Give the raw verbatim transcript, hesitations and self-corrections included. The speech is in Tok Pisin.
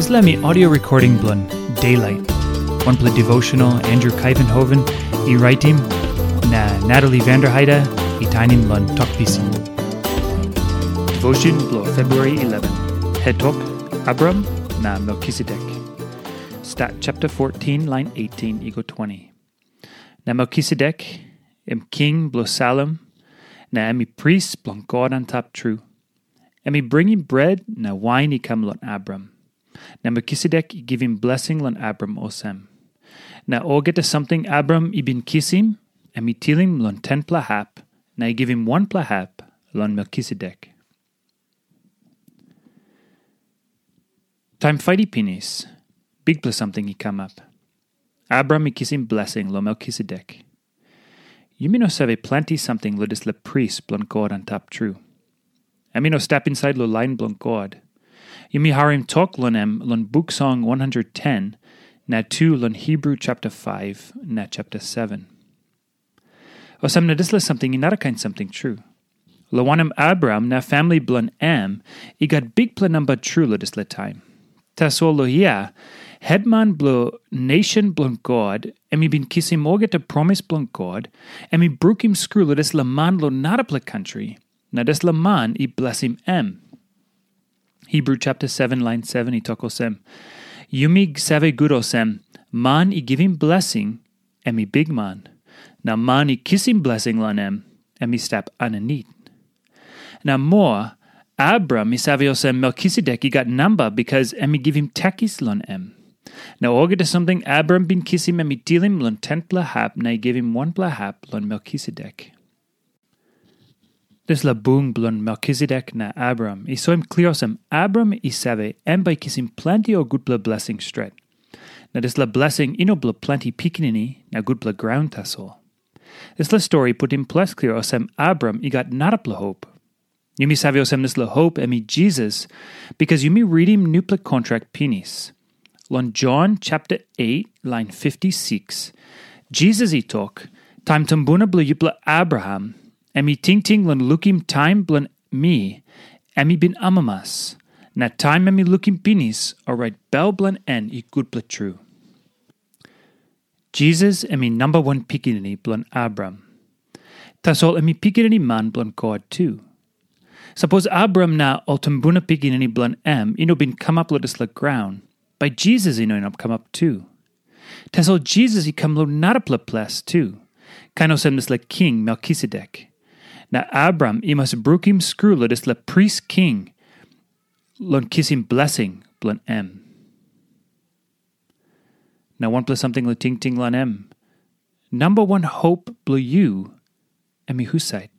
Dispela mi audio recording bilong Daylight, wanpela devotional Andrew Kaivenhoven i raitim, na Natalie Vanderheide i tainim long Tok Pisin. Devotion bilong February eleven, hetok Abram na Melkisedek. Stat chapter fourteen, line eighteen i go twenty. Na Melkisedek, em king bilong Salem, na em i pris bilong God antap tru. Em i bringim bret na wain i kam long Abram. Na Melkisedek i givim blesing long Abram olsem, na olgeta samting Abram i bin kisim, em i tilim long tenpela hap, na i givim wanpela hap long Melkisedek. Taim fait i pinis, bikpela samting i kamap. Abram i kisim blesing long Melkisedek. Yumi no save planti samting long dispela pris bilong God antap tru. Em i no stap insait long lain bilong God. Yumi harim tok long em long Buk Song one hundred ten, na tu long Hebru chapter five na chapter seven. Olsem na dispela samting i narakain samting tru. Long wanem, Abraham na famili bilong em i gat bikpela namba tru long dispela taim. Tasol long hia, hetman bilong nation bilong God, em i bin kisim olgeta promis bilong God, em i brukim skru long dispela man long narapela kantri, na dispela man i blesim em. Hebru chapter seven, lain seven i tok olsem, yumi save gut olsem, man i givim blesing, em i bikman, na man i kisim blesing long em, em i stap aninit. Na moa, Abram i save olsem Melkisedek i gat namba bikas em i givim takis long em. Na olgeta samting Abram bin kisim em i tilim long tenpela hap na i givim wanpela hap long Melkisedek. Dispela bung bilong Melkisedek na Abram i soim klia olsem Abram i save em bai i kisim planti ol gutpela blesing stret. Na dispela blesing i no bilong planti pikinini na gutpela graun tasol. Dispela stori i putim ples klia olsem Abram i gat narapela hop. Yumi save olsem dispela hop em i Jisas, bikas yumi ritim nupela kontrak pinis. Long Jon chapter eight, lain fifty-six, Jisas i tok, taim tumbuna bilong yupela Abraham, em i tingting long lukim taim bilong mi, em i bin amamas. Na taim em i lukim pinis, orait bel bilong en i gutpela tru. Jisas em i namba wan pikinini bilong Abraham. Tasol em i pikinini man bilong God tu. Sapos Abraham na ol tumbuna pikinini bilong em i no bin kamap long dispela graun, bai Jisas i no inap kamap tu. Tasol Jisas i kam long narapela ples tu, kain olsem dispela king Melkisedek. Na Abraham i mas brukim skru long dispela pris king long kisim blesing bilong em. Na wanpela samting long tingting long em. Namba wan hop bilong yu, em i husat?